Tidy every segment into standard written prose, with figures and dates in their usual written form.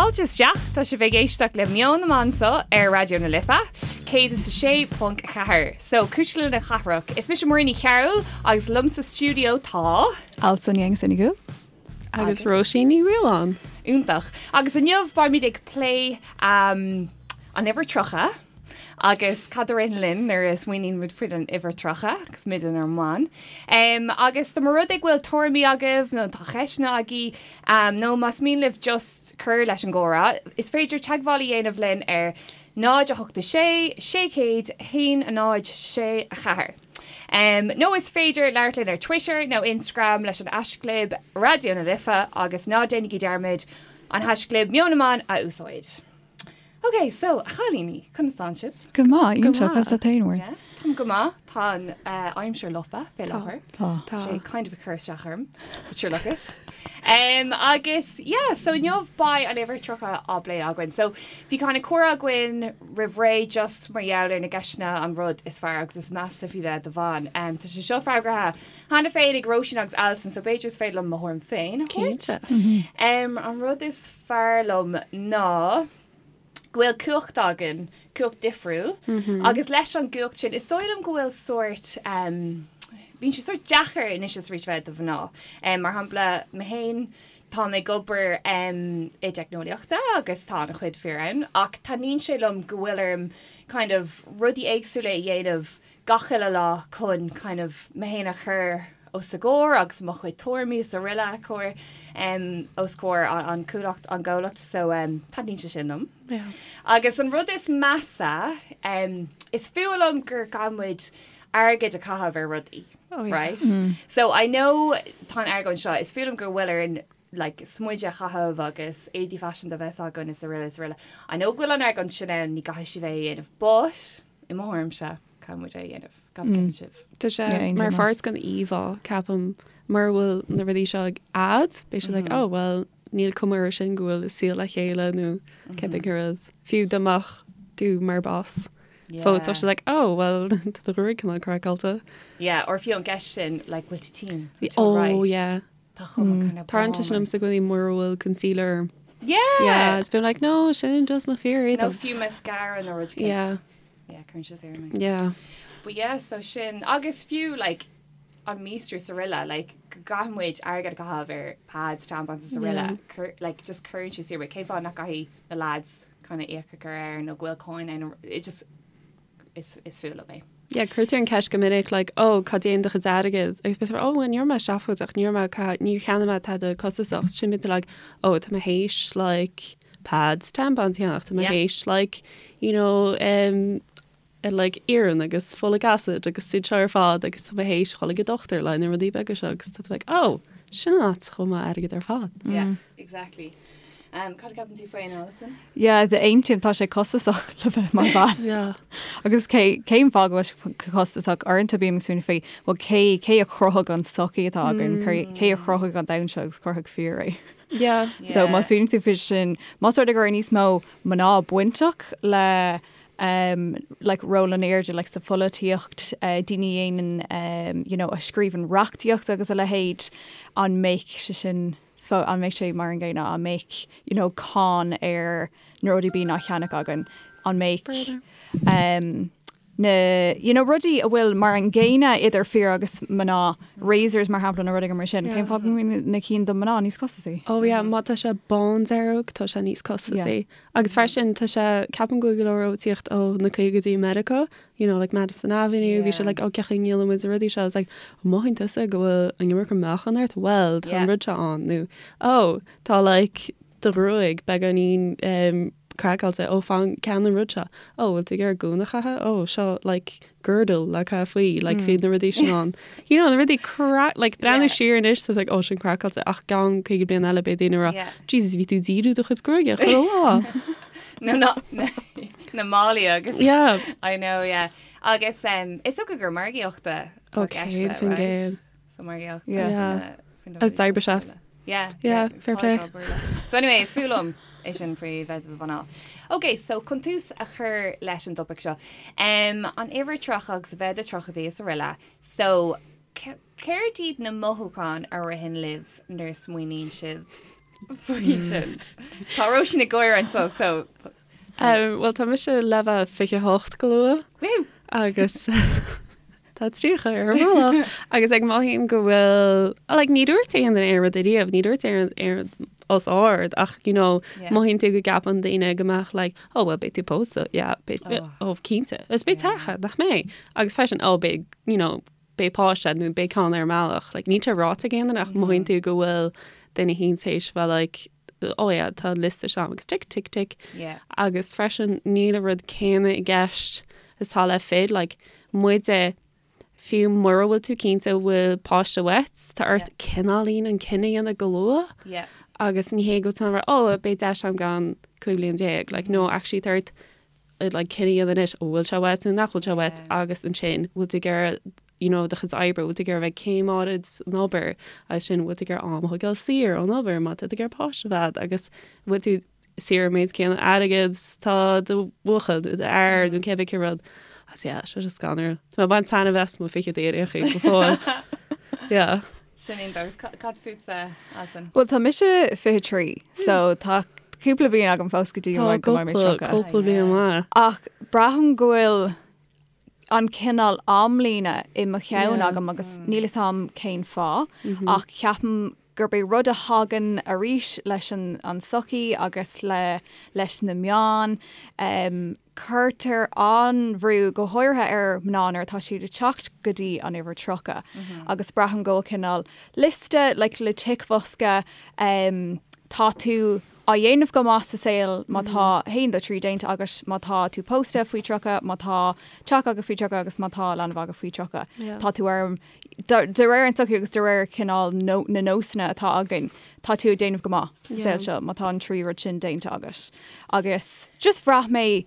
Fáilte isteach, tá sibh ag éisteacht le Meon na mBan anseo ar Raidió na Life, 106.4. So, Cuisle na Cathrach. Is mise Muireann Ní Chearúil agus liom sa stiúideo tá. Alison Ní Aonghusa Ní Dhúill. Agus Róisín Ní Mhaoláin. Iontach. Agus inniu beimid ag plé an uimhir 30 agus cad a ritheann linn nuair a smaoiníonn muid faoin uimhir 30 agus muid inár mban. Agus dá mba rud é go bhfuil tuairimí agaibh nó tá ceisteanna agaibh nó más mian libh just cur leis an gcomhrá, is féidir teagmháil a dhéanamh linn ar 0 8 6 600 1 0 6 4. Nó is féidir labhairt linn ar Twitter nó Instagram leis an haischlib Raidió na Life agus ná déanaigí dearmad an haischlib Meon na mBan a úsáid. Ok, so, a chailíní, conas tánn sibh? Go maith, iontach, conas tá tú féin, Muireann? Yeah, táim go maith, tá an aimsir lofa fé láthair. Tá. Tá sé kind of ag cur isteach orm, but sure look it. Um, agus, yeah, so inniu beidh an uimhir 30 á bplé againn. So, bhí kind of comhrá againn roimh ré just mar gheall ar na gceisteanna an rud is fearr agus is measa faoi bheith i do bhean. Um, tá sé seo freagraithe cheana féin ag Róisín agus Alison, so b'fhéidir is féidir liom mo thuairim féin a thabhairt. Cinnte. Um, an rud is fearr liom ná go bhfuil cumhacht againn, cumhacht difriúil, agus leis an gcumhacht sin, is dóigh liom go bhfuil sórt, um, bíonn sé sórt deacair anois is arís bheith i do mhná. Um, mar shampla, mé féin, táim ag obair um, i dteicneolaíochta agus tá an-chuid fir ann, ach taitníonn sé liom go bhfuil orm kind of rudaí éagsúla a dhéanamh gach uile lá chun kind of mé féin a chur os a gcomhair agus mo chuid tuairimí is araile a chur os comhair an chomhlacht an gcomhlacht so taitníonn sé sin liom. Yeah. Agus an rud is measa is fuath liom gur gá muid airgead a chaitheamh ar rudaí. Oh, yeah. Right? So I know tá an argóint seo, is fuath liom go bhfuil orainn like smideadh a chaitheamh agus éadaí faiseanta a bheith againn is araile is araile. I know go bhfuil an argóint sin ann, ní gcaithfidh sibh é a dhéanamh, but i mo thuairimse, caithfidh muid é a dhéanamh. Cad a cheapann sibh? Tá sé Yeah, mar aontaím. pháirt den íomhá, ceapaim, mura bhfuil na rudaí seo ag agat, beidh siad like, oh, well, níl cuma air sin go bhfuil a saol le chéile nó cibé rud. Fiú dá mbeadh tú mar boss fós, bheadh siad like, oh, well, tá do ghruaig cineál craiceáilte. Yeah, or fiú an gceist sin, like, bhfuil tú tinn? Bhfuil tú Oh, alright? yeah. Tá cuma kind of Tarlaíonn sé sin liomsa i gcónaí mura bhfuil concealer orm. Yeah! Yeah, it's been like, no, sin just mo fíor Nó fiú mascara nó rud Yeah. Yeah, cuireann sé saor mé. Yeah. But yeah, so sin, agus fiú, like, an míostrú is araile, like, go gcaithfidh muid airgead a chaitheamh ar pads, tampons is araile, Yeah. cur, like, just cuireann sé saor mé. Cén fáth nach gcaithfidh na lads kind of íoc a chur air nó go bhfuil cáin ann, it just, is, is fuath liom é. Yeah, cuirtear an ceist go minic, like, oh, cá dtéann do chuid airgid? Agus bíonn oh, well, ní raibh mé seafóideach, ní raibh mé, ca- níor cheannaigh mé tada costasach. Sin bíonn tú like, oh, tá mé théis, like, pads, tampons a cheannach, tá mé Yeah. théis, like, you know, um, eh, like, iarann agus folic acid agus iad seo ar fad agus tá mé théis dhul ag an dochtúir le na rudaí beaga seo agus tá tú like, oh, sin an áit a chuaigh m'airgead ar fad. Yeah, exactly. Um, cad a cheapann tú faoi, Alison? Yeah, aontaím, tá sé costasach le bheith mar bhean. Yeah. Agus cé cén fáth go bhfuil sé costasach uaireanta bím ag smaoineamh faoi, well cé cé a chruthaigh an sochaí atá againn, cé cé a chruthaigh an domhan seo agus chruthaigh fir é. Yeah. So má smaoiníonn tú faoi sin, más rud é go raibh níos mó mná bainteach le um, like ról in airde like sa pholaitíocht, uh, daoine a dhéanann um, you know, a scríobhann reachtaíocht agus a leithéid, an mbeadh sé sin fó, an mbeadh sé mar an gcéanna, an mbeadh you know, cáin ar na rudaí bíonn á cheannach againn, an mbeadh um, na you know, rudaí a bhfuil mar an gcéanna idir fir agus mná, razors mar shampla nó rudaí mar sin, cén fáth go mbíonn na cinn do mná níos costasaí? Oh yeah, má tá sé bándearg tá sé níos costasaí. Agus freisin tá sé, ceapaim go bhfuil go leor ag tíocht ó na caogaidí i Meiriceá, you know, like Madison Avenue, bhí sé like, oh cén chaoi a ndíolann muid na rudaí seo, it's like, an mothaíonn tusa go bhfuil an iomarca meáchan ort? Well, tá an rud seo ann, nó oh, tá like do ghruaig beagáinín um, craiceáilte, oh fan ceannaigh an rud seo, oh bhfuil tú ag iarraidh gúna a chaitheamh, oh seo like girdle le caitheamh faoi, like bhí na rudaí sin ann. You know, na rudaí cra like breathnú Yeah. siar anois, tá like oh sin craiceáilte ach i gceann 50 bliain eile beidh daoine ag rá, Yeah. Jesus bhí tú ag díriú do chuid gruaige chuile lá. No, no, na málaí agus Yeah. I know, yeah. Agus um, is dócha gur margaíochta Oh, 100%. So margaíocht Yeah. Yeah. Agus oibre Yeah, Yeah, fair play. So anyway, is fuath liom é sin faoi bheith i do mhná. Ok, so chun tús a chur leis an dtopaic seo. Um, an uimhir 30 agus a bheith i do tríochaidí is araile. So, céard iad na mothúcháin a ritheann libh nuair a smaoiníonn sibh? faoi sin? Tá Róisín ag gáire anseo so. Bhuel tá mise le bheith 28 go luath. Woo! Agus tá 30 ar an mbealach agus like mothaím go bhfuil like ní dúirt aon duine aon rud ariamh, ní dúirt aon rud os ard ach you know mothaíonn tú go gceapann daoine go mbeadh like oh well beidh tú pósta yeah beidh oh cinnte is beidh teach agat nach mbeidh agus freisin oh beidh you know beidh páiste nó beidh ceann ar an mbealach. Like, níl sé ráite ag aon duine ach mothaíonn tú go bhfuil duine éicint théis bheith like, oh yeah, tá an liosta seo agus tic, tic, tic. Yeah. Agus freisin níl an rud céanna i gceist is atá le fir, like, muide, fiú mura bhfuil tú cinnte bhfuil páiste uait, tá ort cineáilín an cinneadh a dhéanamh go luath. Yeah. Agus ní hé go bhfuil tú in ann a rá, oh, beidh deis agam i gceann 15 bliain. Like, no, actually tá ort like cinneadh a dhéanamh anois, an bhfuil sé uait nó nach bhfuil sé uait agus ansin bhfuil tú ag iarraidh you know do chuid oibre, bhfuil tú ag iarraidh bheith céim áirid san obair agus sin bhfuil tú ag iarraidh am a thógáil saor ón obair má tá tú ag iarraidh páiste a bheith agat agus bhfuil tú saor an méid céanna airgead tá do bhuachaill nó do fhear nó cébí cén rud. Agus yeah, sé seo scanrúil. Tá mé ag baint taitneamh as mo fichidí ar aon chaoi go fóill. Yeah. Sin iontach agus cad fútsa, Alison? Bhuel tá mise 23 so tá cúpla bliain agam fós go dtí Tá go mbeidh mé cúpla 30. cúpla bliain maith. Ach braithim go bhfuil an cineál amlíne i mo cheann Yeah. agam agus níl fhios a'm cén fáth ach ceapaim gurb é rud a thagann arís leis an an tsochaí agus le leis na meáin um, Cuirtear an-bhrú, go háirithe ar mhná nuair atá siad ag teacht go dtí an uimhir 30 agus braithim go bhfuil cineál liosta like le ticbhosca em tá tú á dhéanamh go maith sa saol má tá haon dó trí déanta agat, má tá tú pósta faoi 30, má tá teach agat faoi 30 agus má tá leanbh agat faoi 30. Tá tú ar De réir an tsochaí agus de réir cineál na nósanna atá againn, tá tú ag déanamh go maith sa saol seo má tá an trí rud sin déanta agat. Agus just bhraith mé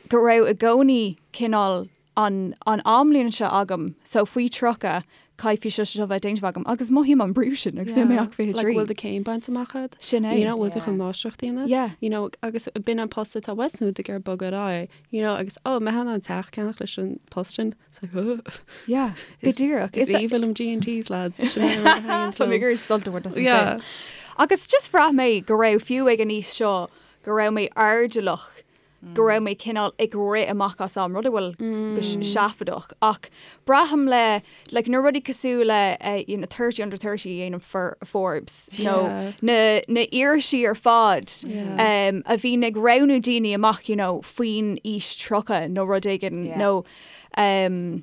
go raibh i gcónaí cineál an an amlíne seo agam, so faoi 30 caithfidh seo seo bheith déanta agam agus mothaím an brú sin agus níl mé ach 23. Like bhfuil do céim bainte amach agat? Sin é. You know, bhfuil tú chun máistreacht a dhéanamh? Yeah. You know, agus b'in an post atá uait nó tú ag iarraidh bogadh ar aghaidh, you know, agus oh, mbeidh in ann teach a cheannach leis an post sin? It's like, oh. Yeah, go díreach. Is aoibhinn liom G&Ts, lads. Sin é an rud a thaitníonn Tá mé liom. ag iarraidh sult a bhaint as an Yeah. saol. Agus just bhraith mé go raibh fiú ag an aois seo go raibh mé airdeallach, go raibh mé cineál ag rith amach as am, rud a bhfuil go seafóideach. Ach braithim le, like, na rudaí cosúil le eh, you know, 30 under 30 a dhéanann For- Forbes nó Yeah. na, na irisí ar fad Yeah. um, a bhíonn ag roghnú daoine amach you know, faoin aois 30 nó rud éigin Yeah. nó um,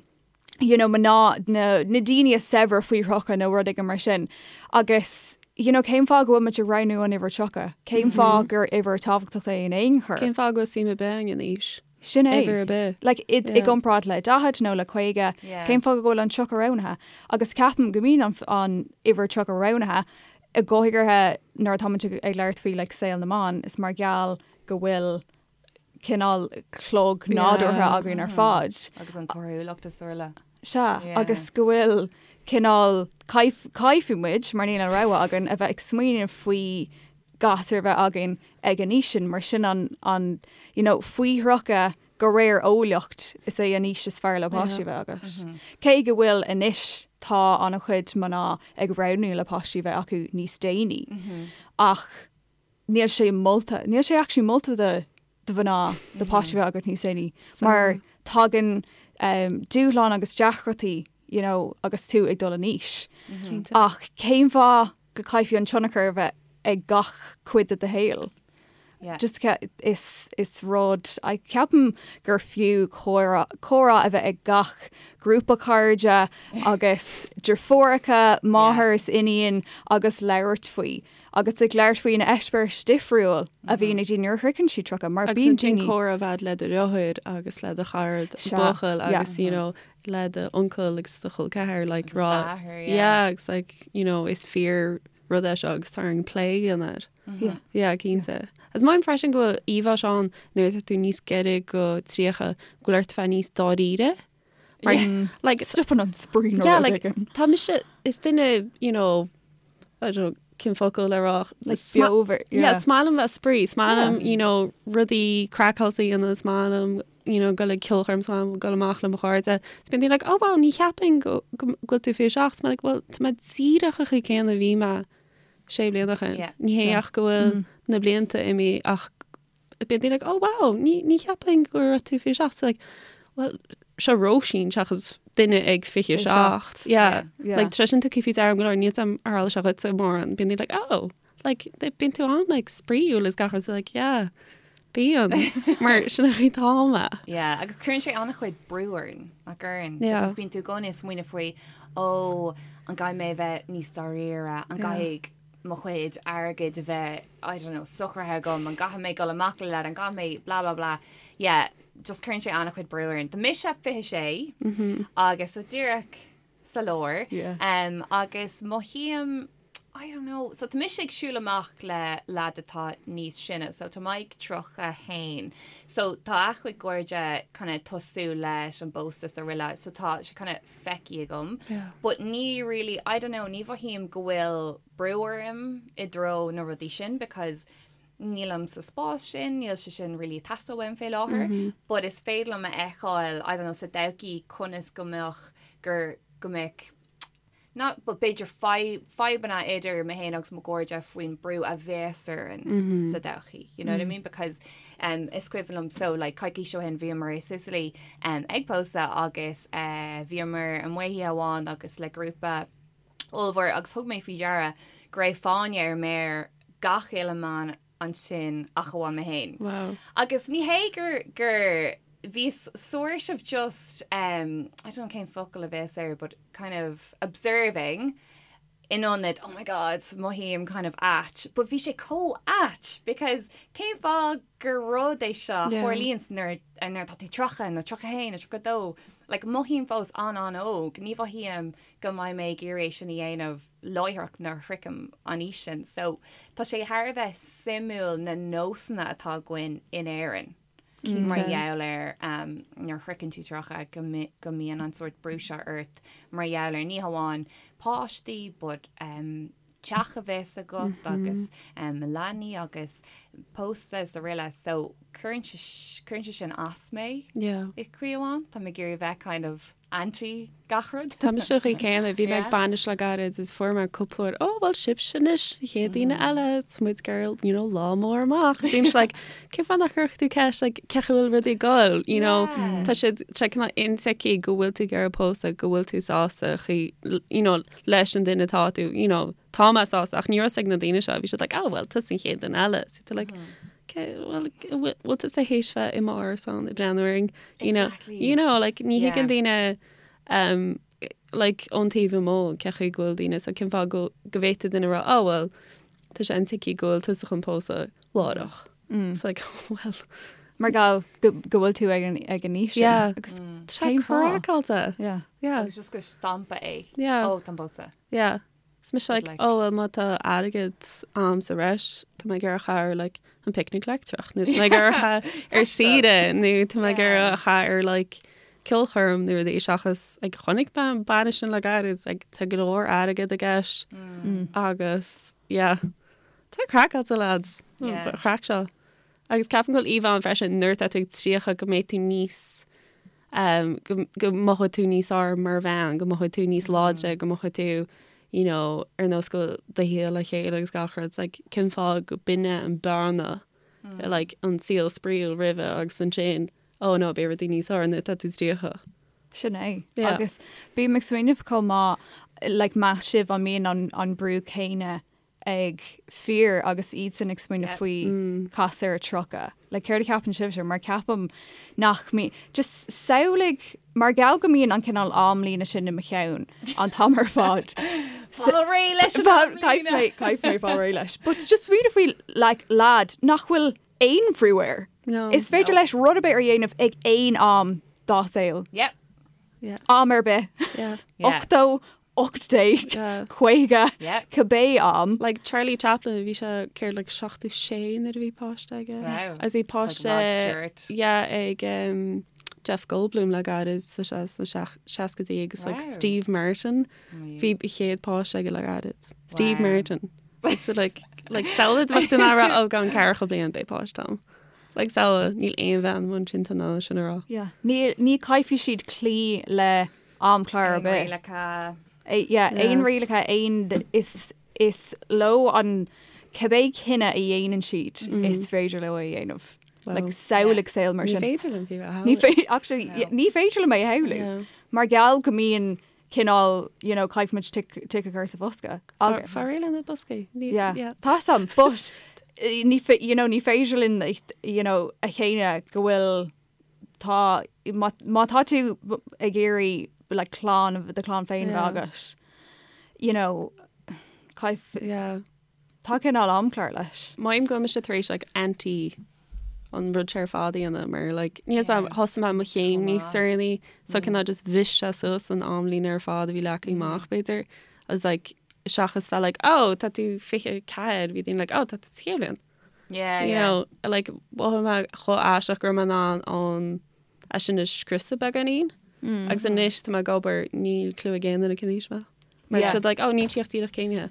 you know, mná na, na daoine is saibhre faoi thríocha nó rud éigin mar sin. Agus you know, cén fáth go bhfuil muid ag roghnú an uimhir 30? Cén fáth gur uimhir tábhachtach é in aon chor? Cén fáth go bhfuil suim ar bith againn in aois? Sin é. Uimhir ar bith. Like, i, i Yeah. gcomparáid le 40 nó le 50, Yeah. cén fáth go bhfuil an 30 roghnaithe? Agus ceapaim go mbíonn an, an uimhir 30 roghnaithe i go háirithe nuair atá muid ag, ag labhairt faoi like, saol na mban, is mar gheall go bhfuil cineál clog nádúrtha Yeah. againn ar fad. Agus an torthúlacht is dóigh. Sea, Yeah. agus go bhfuil cineál caith, caithfidh muid, mar níl an rogha againn, a bheith ag smaoineamh faoi gasúr a bheith againn ag an aois sin, mar sin an, an, you know, faoi thríocha de réir eolaíocht is é an aois is fearr le páistí a bheith agat. Cé go bhfuil anois tá an-chuid mná ag roghnú le páistí a bheith acu níos déanaí, ach níl sé molta, níl sé actually molta do do mhná do páistí a bheith agat níos déanaí, mar tagann um, dúshlán agus deacrachtaí you know, agus tú ag dul in aois. Cinnte. Ach cén fáth go caithfidh an tionchar a bheith ag gach cuid de do shaol? Yeah. Just is, is rud, I ceapaim gur fiú comhrá, comhrá a bheith ag gach grúpa cairde agus deirfiúracha, máthair is iníon agus labhairt faoi. Agus ag labhairt faoi na eispéiris difriúil a bhíonn ag daoine nuair a shroicheann siad 30, mar Agus bíonn ansin daoine. comhrá a bheith le do dheartháir agus le do chara Sea, buachaill yeah. agus you know le do uncail agus do chol ceathar like Agus rá d'athair, yeah. yeah agus like you know is fíor rud é seo agus tá orainn plé a dhéanamh air. Yeah. Yeah, cinnte. Agus mothaím freisin go bhfuil íomhá seo ann nuair atá tú níos gaire go 30 go bhfuil ort bheith níos dáiríre. Mar like Stopann an spraoi nó yeah, rud like éigin. tá mise is duine you know I don't know cén focal le rá Like is ma- beomhar, yeah, yeah. is maith liom bheith spraoi, is maith liom you know rudaí craiceáilte a dhéanamh, is maith liom you know gabháil ag ceolchoirm, is maith liom gabháil amach le mo chairde. Is bíonn daoine like oh wow ní cheapfainn go go bhfuil tú 27, is mé like well tá mé díreach an chaoi céanna a bhí mé. Sé bliana ó shin. Ní hé ach go bhfuil na blianta imithe ach bíonn daoine like, oh wow, ní, ní cheapfainn go raibh tú 27. So like, well, seo Róisín seachas duine ag 27. Yeah. Yeah. Like, tá sin tugtha faoi deara go leor, níl a fhios agam ar tharla sé dhuitse mórán. Bíonn daoine like, oh, like, bíonn tú an like, spraíúil is gach rud. So like, yeah, bíonn. Mar sin an chaoi atá mé. Yeah, agus cuireann sé an-chuid brú orainn, nach gcuireann? Yeah. Because bíonn tú i gcónaí ag smaoineamh faoi, ó, an gcaithfidh mé a bheith níos dáiríre, an gcaithfidh mo chuid airgid a bheith, I don't know, socraithe agam, an gcaithfidh mé dul amach le leaid, an gcaithfidh mé blah blah blah. Yeah, just cuireann sé an-chuid brú orainn. Tá mise 26 agus so díreach sa lár. Yeah. Um, agus mothaím, I don't know, so tá mise ag siúl amach le leaid atá níos sine, so tá Mike 31, so tá a chuid cairde kind of tosú leis an bpósta is araile, so tá sé kind of feicthe agam. Yeah. But ní really, I don't know, ní mhothaím go bhfuil brú orm i dtreo na rudaí sin because nílim sa spás sin, níl sé sin really ag teastáil uaim fé láthair, but is féidir liom a fheiceáil, I don't know, sa todhchaí conas go mbeadh gur go mbeadh not but b'fhéidir fadhbanna idir mé féin agus mo chairde faoin brú a bheas orainn sa todhchaí, you know what I mean? Because um, is cuimhin liom so like coicís ó shin bhíomar i Sicily um, ag pósadh agus uh, bhíomar amuigh oíche amháin agus le grúpa ollmhór agus thug mé faoi deara go raibh fáinne ar méar gach uile mbean ansin ach amháin mé féin. Wow. Agus ní hé gur gur bhíos sort of just um, I don't know cén focal a bheas air but kind of observing in ionad oh my god mothaím kind of ait but bhí sé chomh ait because cén fáth gur rud é seo a Yeah. tharlaíonn nuair nuair atá tú 30 nó 31 nó 32 like mothaím fós an-an-óg ní mhothaím go mbeidh mé ag iarraidh é sin a dhéanamh láithreach nuair a shroichim an aois sin. So tá sé thar a bheith suimiúil na nósanna atá againn in Éirinn mar gheall ar nuair a shroicheann tú 30 go mbíonn an sórt brú seo ort mar gheall ar ní hamháin páistí but teach a bheith agat agus leanaí agus pósta is araile so cuireann sé sin as mé i gcaoi amháin. Tá mé ag iarraidh a bheith kind of anti gach rud. Tá mise an chaoi céanna, bhí mé ag bainis le gairid is fuair mé cúpla uair, oh well sibhse anois, an chéad daoine eile, tá muid ag iarraidh, you know, lá mór amach. Is bímse like, cén fáth nach gcuirfeadh tú ceist, like, cén chaoi a bhfuil rudaí ag dul, you know, tá siad, tá cineál intuigthe go bhfuil tú ag iarraidh pósadh, go bhfuil tú sásta, chaoi, you know, leis an duine atá tú, you know, tá mé sásta, ach ní raibh a fhios ag na daoine seo, bhí siad like, oh well, tusa an chéad duine eile. So tú like, okay, well, bhfuil tusa théis bheith i m'árasán ag breathnú orainn? You know, Exactly. you know, like, ní Yeah. thuigeann daoine um, like, ón taobh amuigh cén chaoi go bhfuil daoine, so cén fáth go, go bhféadfadh duine rá, oh well, tá sé intuigthe go bhfuil tusa chun pósadh láithreach. It's like, well, Mar gheall go go bhfuil tú ag an ag an aois sin. Yeah. Agus tá sé cén fáth? craiceáilte. Yeah. Yeah, Agus just go stampa é. Yeah. Ó, tá an pósta. yeah. Is mise like, like- oh well má tá airgead a'm sa bhreis, tá mé ag iarraidh a chaitheamh ar like an picnic leictreach, nó tá mé ag iarraidh a chaitheamh ar saoire, nó tá mé ag iarraidh a chaitheamh ar like ceolchoirm nó rudaí seachas like chonaic mé an bainis sin le gairid, like tá go leor airgead i gceist agus yeah. Tá craiceáilte lads. Yeah. Chraic seo. Agus ceapaim go bhfuil íomhá ann freisin nuair atá tú ag 30 go mbeidh tú níos go go mothóidh tú níos fearr mar bhean, go mothóidh tú níos láidre, go mothóidh tú you know ar nós go bhfuil do shaol le chéile agus gach rud. It's like cén fáth go b'in é an bearna like an saol spraíúil roimhe agus ansin oh no beidh rudaí níos fearr nuair atá tú 30. Sin é. Yeah. Agus bím ag smaoineamh chomh maith like meas sibh an mbíonn an an brú céanna ag fir agus iadsan ag smaoineamh faoi casadh ar 30. Like céard a cheapann sibhse? Mar ceapaim nach mbíonn, just samhlaigh, mar gheall go mbíonn an cineál amlíne sin i mo cheann an t-am ar fad. Fáil réidh leis an amlíne! Caithfidh mé fáil réidh leis. But just smaoineamh faoi like lad nach bhfuil aon bhrú air. No. Is féidir leis rud ar bith a dhéanamh ag aon am dá saol. Yep. Yeah. Am ar bith. Yeah. Yeah. 80, 18, Yeah. 50, Yeah. cibé am. Like Charlie Chaplin, bhí sé céard like 76 nuair a bhí páiste aige. Wow. Agus bhí Like Rod páiste Stewart. yeah, ag um, Jeff Goldblum le gairid sa sna seascaidí agus like Wow. Steve Martin. Bhí a chéad páiste aige le gairid. Steve Wow. Martin. So like like samhlaigh bheadh duine ag rá ó i gceann ceathracha bliain beidh páiste agam. Like samhlaigh níl aon bhean mar sin in ann sin a rá. Yeah. Ní, ní caithfidh siad cloí le amchlár ar Aon bith. rialacha. Yeah, Yeah. aon rialacha, aon is is leo an cibé cinneadh a dhéanann siad is féidir leo é a dhéanamh. Like samhlaigh saol mar sin. Ní féidir liom fiú a shamhlú. Ní féidir, actually, ní féidir liom é a shamhlú. Mar gheall go mbíonn cineál, you know, caithfimid tic tic a chur sa bhosca. Agus. Fáil réidh le na boscaí. Yeah. Yeah. Tá sam, but ní you know, ní féidir linn, you know, a shéanadh go bhfuil tá má má tá tú ag iarraidh like clann do chlann féin a bheith agat, you know, caith Yeah. Tá cineál amchlár leis. Mothaím go bhfuil mise tar éis like anti an rud seo ar fad a dhéanamh mar like níl 's a'm thosaigh mé mo chéim níos deireanaí so cineál just bhris sé suas an amlíne ar fad a bhí leagtha amach b'fhéidir agus like seachas bheith like oh tá tú 24 bhí daoine like oh tá tú sa chéad bhliain. Yeah, You yeah. know like mhothaigh mé chomh aisteach go raibh mé in ann an é sin a scriosadh beagáinín agus anois tá mé ag obair níl clue ag aon duine cén aois mé. Mar Yeah. siad like, oh, níl sí ach díreach céimithe.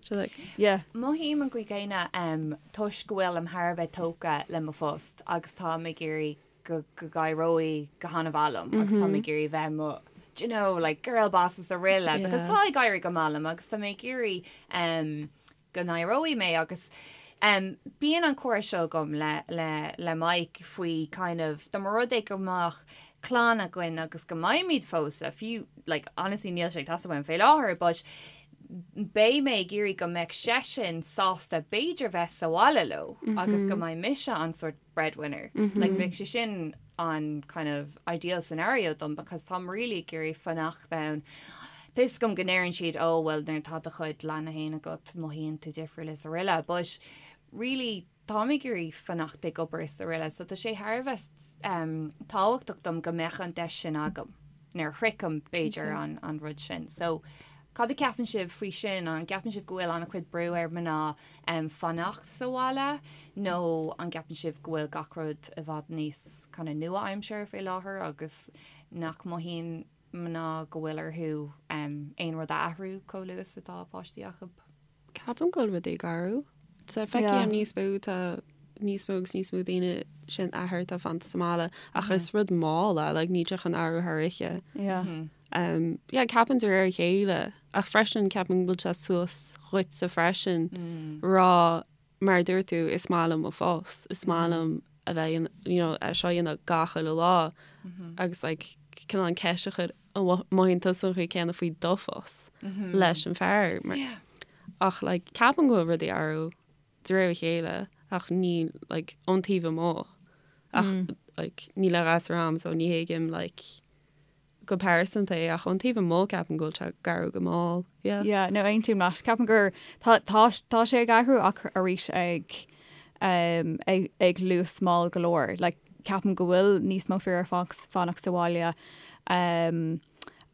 So like, Yeah. Mothaím an chaoi chéanna um, toisc go bhfuilim thar a bheith tógtha le mo phost agus táim ag iarraidh go go n-éireoidh go han-mhaith liom agus táim ag iarraidh bheith mo do you know, like girl boss is araile because Yeah. tá ag éirí go maith liom agus tá mé ag iarraidh um, go n-éireoidh mé agus um, bíonn an comhrá seo agam le, le, le Mike faoi kind of dá mba rud é go mbeadh clann againn agus go mbeimid pósta, fiú like honestly níl sé ag teastáil uaim fé láthair but beidh mé ag iarraidh go mbeadh seisean sásta b'fhéidir bheith sa bhaile leo agus go mbeidh mise an sort breadwinner. Like bheadh sé sin an kind of ideal scenario dom because táim really ag iarraidh fanacht ann. Tá 'fhios agam go ndeireann siad oh well nuair atá do chuid leanaí féin agat mothaíonn tú difriúil is araile but really táim ag iarraidh fanacht ag obair is araile so tá sé thar a bheith um, tábhachtach dom go mbeadh an deis sin agam nuair a shroichim b'fhéidir an, an rud sin. So cad a ceapann sibh faoi sin an gceapann sibh go bhfuil an-chuid brú ar mná um, fanacht sa bhaile nó an gceapann sibh go bhfuil gach rud i bhfad níos kind of nua-aimseartha fé láthair agus nach mothaíonn mná go bhfuil orthu um, aon rud a athrú chomh luath is atá páistí acu? Ceapaim go bhfuil rudaí ag athrú. Tá feicim níos mó tá níos mó agus níos mó daoine sin athair atá fanta sa mbaile ach is rud mall é like níl sé chun athrú thar oíche. Yeah. Um, yeah, ceapaim de réir a chéile ach freisin ceapaim go bhfuil sé suas dhuitse freisin rá mar a dúirt tú is maith liom mo phost, is maith liom a bheith in, you know, é seo a dhéanamh gach uile lá agus like cineál an ceist a chur an mothaíonn tusa an chaoi céanna faoi do phost leis an fear mar ach like ceapaim go bhfuil rudaí ag athrú de réir a chéile ach ní like ón taobh amuigh ach like níl a ghasúr a'm so ní thuigim like go pearsanta é ach ón taobh amuigh ceapaim go bhfuil sé ag athrú go mall yeah. Yeah, no aontaím leat. Ceapaim gur tá tá tá sé ag athrú ach arís ag um, ag, ag luas mall go leor. Like, ceapaim go bhfuil níos mó fir ag fanacht sa bhaile. Um,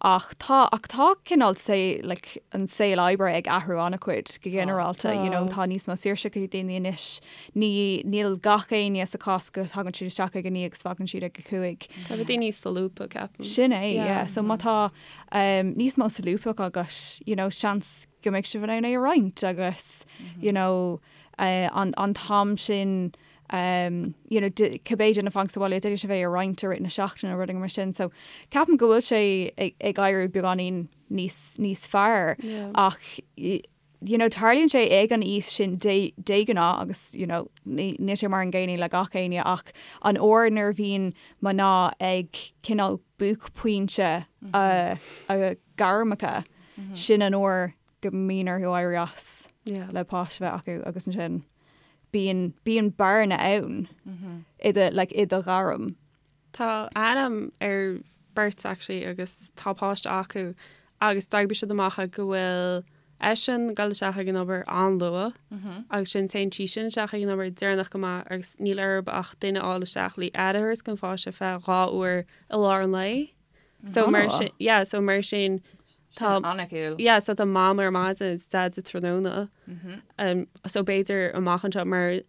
ach tá ach tá cineál say, like, an saol oibre ag athrú an-chuid go ginearálta. You know, tá níos mó saoirse ag daoine anois. Ní níl gach éinne sa chás go dtagann siad isteach ag a naoi agus fágann siad ag a cúig. Tá rudaí níos solúbtha ceapaim. Sin é, yeah. So má tá um, níos mó solúbthacht agat, you know, seans go mbeidh sibh in ann é a roinnt agus, you know, uh, an, an t-am sin um, you know, cibé duine fanacht sa bhaile d'fhéadfadh sibh é a roinnt i rith na seachtaine nó rudaí mar sin. So ceapaim go bhfuil sé ag, ag éirí beagáinín níos, níos fearr Yeah. ach you know, tarlaíonn sé ag an aois sin de, de ghnáth agus you know, ní, níl sé mar an gcéanna le gach éinne ach an uair nuair a bhíonn mná ag cineál buaicphointe a, a gairmeacha, sin an uair go mbíonn orthu éirí as Yeah. le páiste a bheith acu agus ansin bíonn, bíonn bearna ann i do, like, i do ghairm. Tá aithne ar beirt actually agus tá páiste acu agus d'oibrigh siad amach go bhfuil eisean ag dul isteach ag an obair an-luath agus sin téann sí sin isteach ag an obair deireanach go maith agus níl orthu ach duine a fháil isteach le aire a thabhairt don pháiste feadh 2 uair i lár an lae. So mar sin, yeah, so mar sin tá an-cool. Yeah, so tá mam ar maidin is dad sa tráthnóna. Um, so b'fhéidir amach anseo mar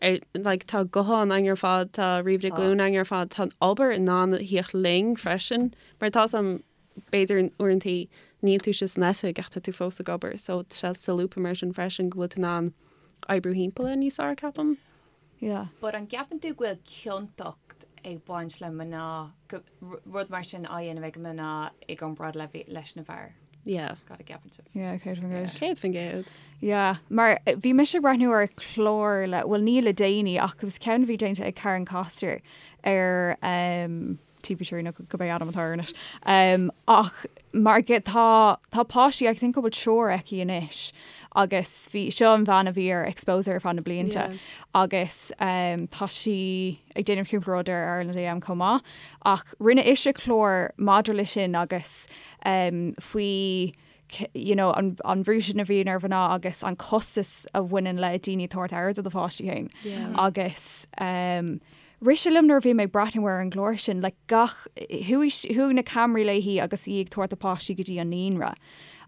ar, like, tá guthán againn ar fad, tá ríomhaire glúine againn ar fad, tá an obair in ann a thíocht linn freisin, mar tá sam b'fhéidir uaireantaí níl tú sa san oifig ach tá tú fós ag obair, so tá sé solúbtha mar sin freisin go bhfuil tú in ann oibriú thimpeall air níos fearr, ceapaim. Yeah. But an gceapann tú go bhfuil ciontacht ag baint le mná, go, rud mar sin á dhéanamh ag mná i gcomparáid le, leis na bhfear? Yeah. Cad a gceapann sibh? Yeah, 100%. 100%. Yeah, mar bhí mise ag breathnú ar chlár le, bhuel ní le déanaí ach it was ceann a bhí déanta ag Karen Koster ar um, TV3 nó cibé ainm atá air anois. Um, ach mar ge, tá, tá páistí, I think go bhfuil triúr aici anois agus bhí, seo an bhean a bhí ar Exposé ar feadh na blianta Yeah. agus um, tá sí ag déanamh cúpla rud ar Ireland AM chomh maith ach rinne ise clár maidir le sin agus um, faoi you know, an, an bhrú sin a bhíonn ar mhná agus an costas a bhaineann le daoine tabhairt aire do do pháistí féin. Yeah. Agus um, rith sé liom nuair a bhí mé ag breathnú ar an gclár sin, like, gach, chuaigh, chuaigh na ceamaraí léi agus í ag tabhairt a páistí go dtí an naíonra.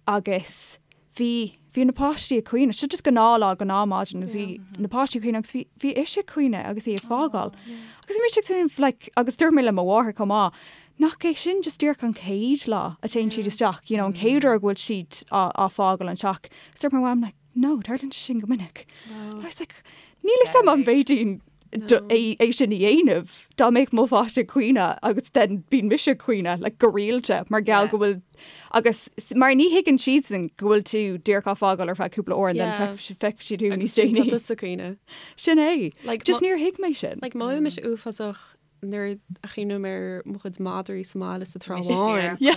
Agus bhí, bhí na páistí ag caoineadh, seo just gnáthlá, gnáthmhaidin, agus bhí na páistí ag caoineadh agus bhí, bhí ise ag caoineadh agus í ag fágáil. Agus bhí mise ag smaoineamh, like, agus dúirt mé le mo mháthair chomh maith, nach é sin just díreach an chéad lá a téann siad isteach, you know, an chéad uair go bhfuil siad á, á fágáil an teach. Agus dúirt mo mham, like, no, tarlaíonn sé sin go minic. I was like, níl a fhios agam an bhféadfainn é, é sin a dhéanamh dá mbeadh mo pháiste ag caoineadh agus then bíonn mise ag caoineadh, like, go rialta mar gheall Yeah. go bhfuil agus mar ní thuigeann siadsan go bhfuil tú díreach á fágáil ar feadh cúpla uair and then Yeah. feicfidh feicfidh siad thú Agus níos sin déanaí. tá tusa ag caoineadh. Sin é. Like, Just mo- níor thuig mé sin. Like, mothaím mise uafásach nuair a chuimhním ar mo chuid madraí sa mbaile sa Trá Bháin. Yeah.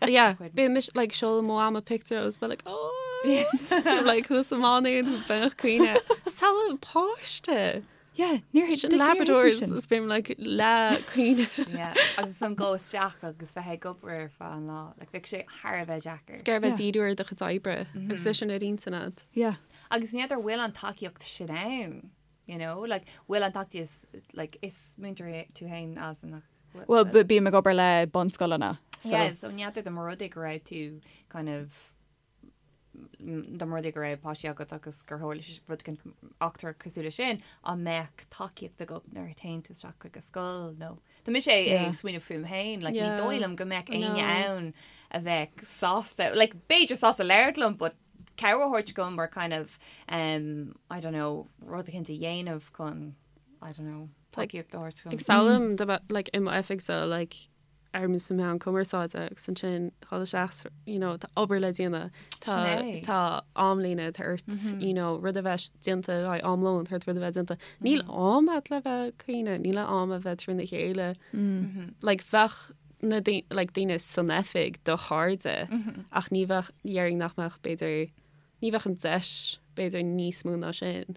Yeah, bíonn mise like seolaim mo mham picture agus bheith like oh like thuas sa mBánú bheith ag caoineadh. Samhlaigh páiste. Yeah, níor thuig Sin níor thuig mé Labradors sin. is bím like le caoineadh. Yeah, agus an dul isteach agus bheith ag obair ar feadh an lá, like bheadh sé thar a bheith deacair. Gur bheith Yeah. díriú ar do chuid oibre agus é sin ar intinn agat. Yeah. Agus ní fheadar bhfuil an tacaíocht sin ann, you know, like bhfuil an tacaíocht like is múinteoir tú féin Alison nach Well, bím ag obair le bunscoileanna. So yeah, so ní fheadar dá mba rud é go raibh tú kind of dá mba rud é go raibh páistí agat agus gur tharla rud éicint eachtra cosúil leis sin, an mbeadh tacaíocht agat nuair a théann tú isteach chuig an scoil nó Tá mise ag smaoineamh fúm féin, like, ní dóigh liom go mbeadh éinne ann a bheadh sásta, like, b'fhéidir sásta labhairt liom, but cabhair a thabhairt dom or kind of, um, I don't know, rud éicint a dhéanamh chun, I don't know, tacaíocht a thabhairt dom. Ag samhlaím do bheith, like, i m'oifig so, like, ar sa meán cumarsáide agus ansin dhul isteach, you know, tá obair le déanamh, tá, Sin é. tá amlíne, tá ort, you know, rud a bheith déanta le haghaidh am lóin, tá ort rud a bheith déanta. Níl am agat le bheith ag caoineadh, níl am a bheith trína chéile. Like, bheadh na like, daoine san oifig do chairde ach ní bheadh, déarfainn nach mbeadh b'fhéidir, ní bheadh an deis b'fhéidir níos mó ná sin.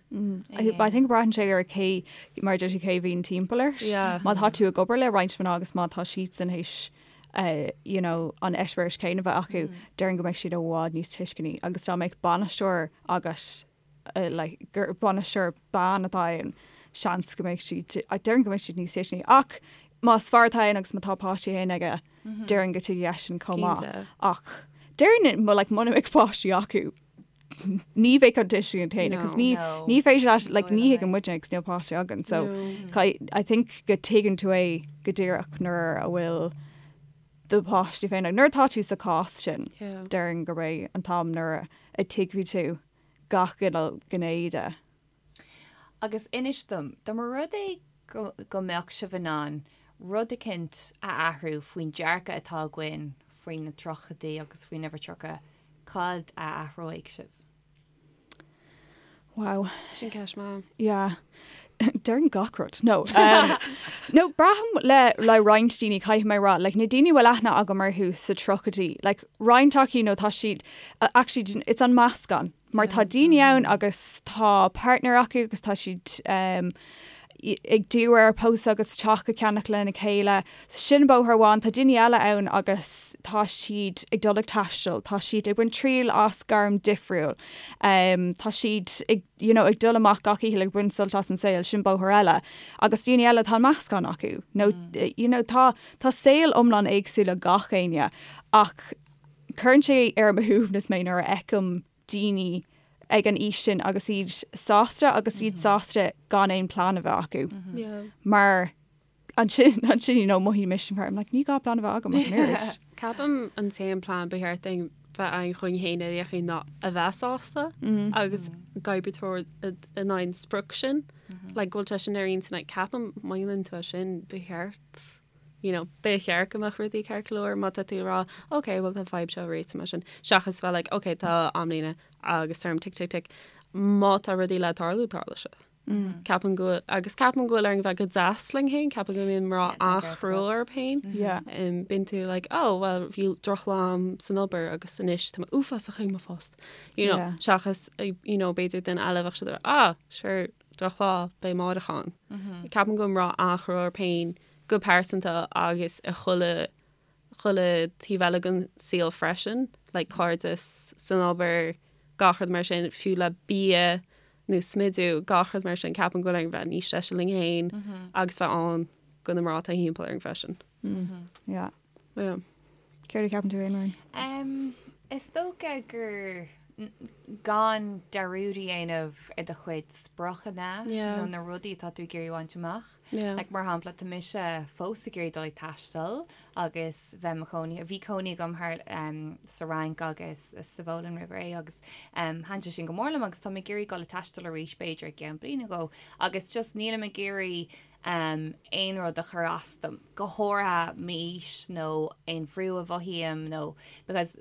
I I think braitheann sé ar cé mar deir tú cé bhíonn timpeall ort. Yeah. Má tá tú ag obair le roinnt mná agus má tá siadsan théis uh, you know, an eispéireas céanna a bheith acu, déarfainn go mbeidh siad i bhfad níos tuisceanaí agus dá mbeadh bainisteoir agat uh, like, gur bainisteoir bean atá ann, seans go mbeidh siad, déarfainn go mbeidh siad níos tuisceanaí. Ach más fear atá ann agus má tá páistí féin aige, déarfainn go dtuigfidh eisean chomh maith. Cinnte. Ach déarfainn mo like, muna mbeadh páistí acu, ní bheadh an tuiscint céanna, No. cos ní No. ní féidir leat, like, Ní ní dóigh liom thuigeann é. muidne agus níl páistí againn, so No. I think go tuigeann tú é go díreach nuair a bhfuil do pháistí féin. Nuair atá tú sa chás sin, Yeah. déarfainn gurb é an t-am nuair a tuigfidh tú gach cineál gné de. Agus inis dom, dá mba rud é go, go mbeadh sibh in ann rud eicint a athrú faoin dearcadh atá againn faoi na tríochaidí agus faoin uimhir 30, cad a athróidh sibh? Wow. Sin ceist maith. Yeah. Déarfainn gach rud. No. Um, no, braithim le, le roinnt daoine caithfidh mé rá, like, na daoine bhfuil aithne agam orthu sa tríochaidí, like, roinnt acu nó tá siad, uh, actually, it's an meascán. Mar tá daoine ann agus tá partner acu agus tá siad um, ag díriú ar pósadh agus teach a cheannach lena chéile. Sin bóthar amháin, tá daoine eile ann agus tá siad ag dul ag taisteal, tá siad ag baint triail as gairm difriúil, um, tá siad ag, you know, ag dul amach gach oíche ag baint sult as an saol, sin bóthar eile. Agus daoine eile tá meascán acu. No, mm. you know, tá, tá saol iomlán éagsúil ag gach éinne ach cuireann sé ar mo shuaimhneas mé nuair a fheicim daoine ag an aois sin agus iad sásta agus iad sásta gan aon plean a bheith acu. Yeah. Mar ansin ansin you know mothaím mise mar I'm like ní gá plean a bheith agam ach an oiread. Ceapaim an t-aon plean ba cheart dúinn bheith againn chugainn féin ar aon chaoi ná a bheith sásta agus ag oibriú in aghaidh an sprioc sin. Like go bhfuil sé sin ar intinn like ceapaim má dhéanann tú é sin ba cheart. You know, ba cheart go mbeadh rudaí ceart go leor má tá tú ag rá, ok, bhuel tá an fadhb seo réitithe mar sin, seachas bheith like, ok, tá amlíne agus táim tic tic tic. Má tá rudaí le tarlú, tarlóidh siad. Ceapaim go bhfuil, agus ceapaim go bhfuil orainn bheith go deas linn féin, ceapaim go mbíonn mná an-chrua orthu féin. Yeah. Bíonn tú like, oh, well, bhí drochlá agam san obair agus anois tá mé uafásach ag mo phost. You know, Yeah. seachas, you know, b'fhéidir duine eile bheadh siad, ah, sure, drochlá, beidh amárach ann. Ceapaim go bhfuil mná an-chrua orthu féin go pearsanta agus i chuile chuile taobh eile den saol freisin, like cairdeas, san obair, gach rud mar sin, fiú le bia nó smidiú, gach rud mar sin, ceapaim go bhfuil orainn bheith níos deise linn féin agus bheith ann do na mná atá thimpeall orainn freisin. Yeah. Yeah. Céard a cheapann tú féin, Muireann? Um, is dócha gur gan dearúd a dhéanamh ar do chuid spriocanna Yeah. nó na rudaí atá tú ag iarraidh a bhaint amach. Yeah. Like, mar shampla, tá mise fós ag iarraidh dul ag taisteal agus bheith mo chónaí, bhí cónaí agam thar um, sa Fhrainc agus sa Pholainn roimh ré agus um, thaitin sé sin go mór liom agus tá mé ag iarraidh dul ag taisteal arís b'fhéidir i gceann bliain nó dhó agus just nílim ag iarraidh um, aon rud a chur as dom, go háirithe m'aois nó aon bhrú a mhothaím nó because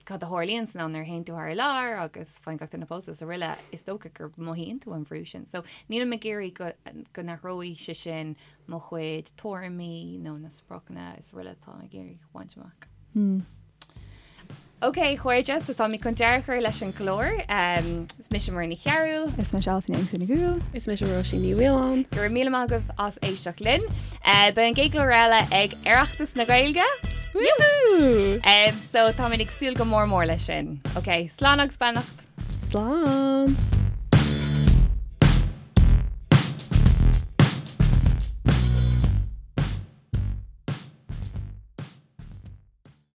cad a tharlaíonn san am nuair a théann tú thar lear agus faigheann gach duine pósadh is araile, is dócha gur mothaíonn tú an bhrú sin. So nílim ag iarraidh go, go n-athróidh sé sin mo chuid tuairimí nó na spriocanna is araile atá ag iarraidh a bhaint amach. Hmm. Ok, a chairde, so táimid chun deireadh a chur leis an gclár. Um, is mise Muireann Ní Chearúil. Is mise Alison Jameson Ní Dhúill. Is mise Róisín Ní Mhaoláin. Go raibh míle maith agaibh as éisteacht linn. Uh, beidh an gcéad chlár eile ag Oireachtas na Gaeilge. Woohoo! Um, so táimid ag súil go mór mór leis sin. Ok, slán agus beannacht. Slán!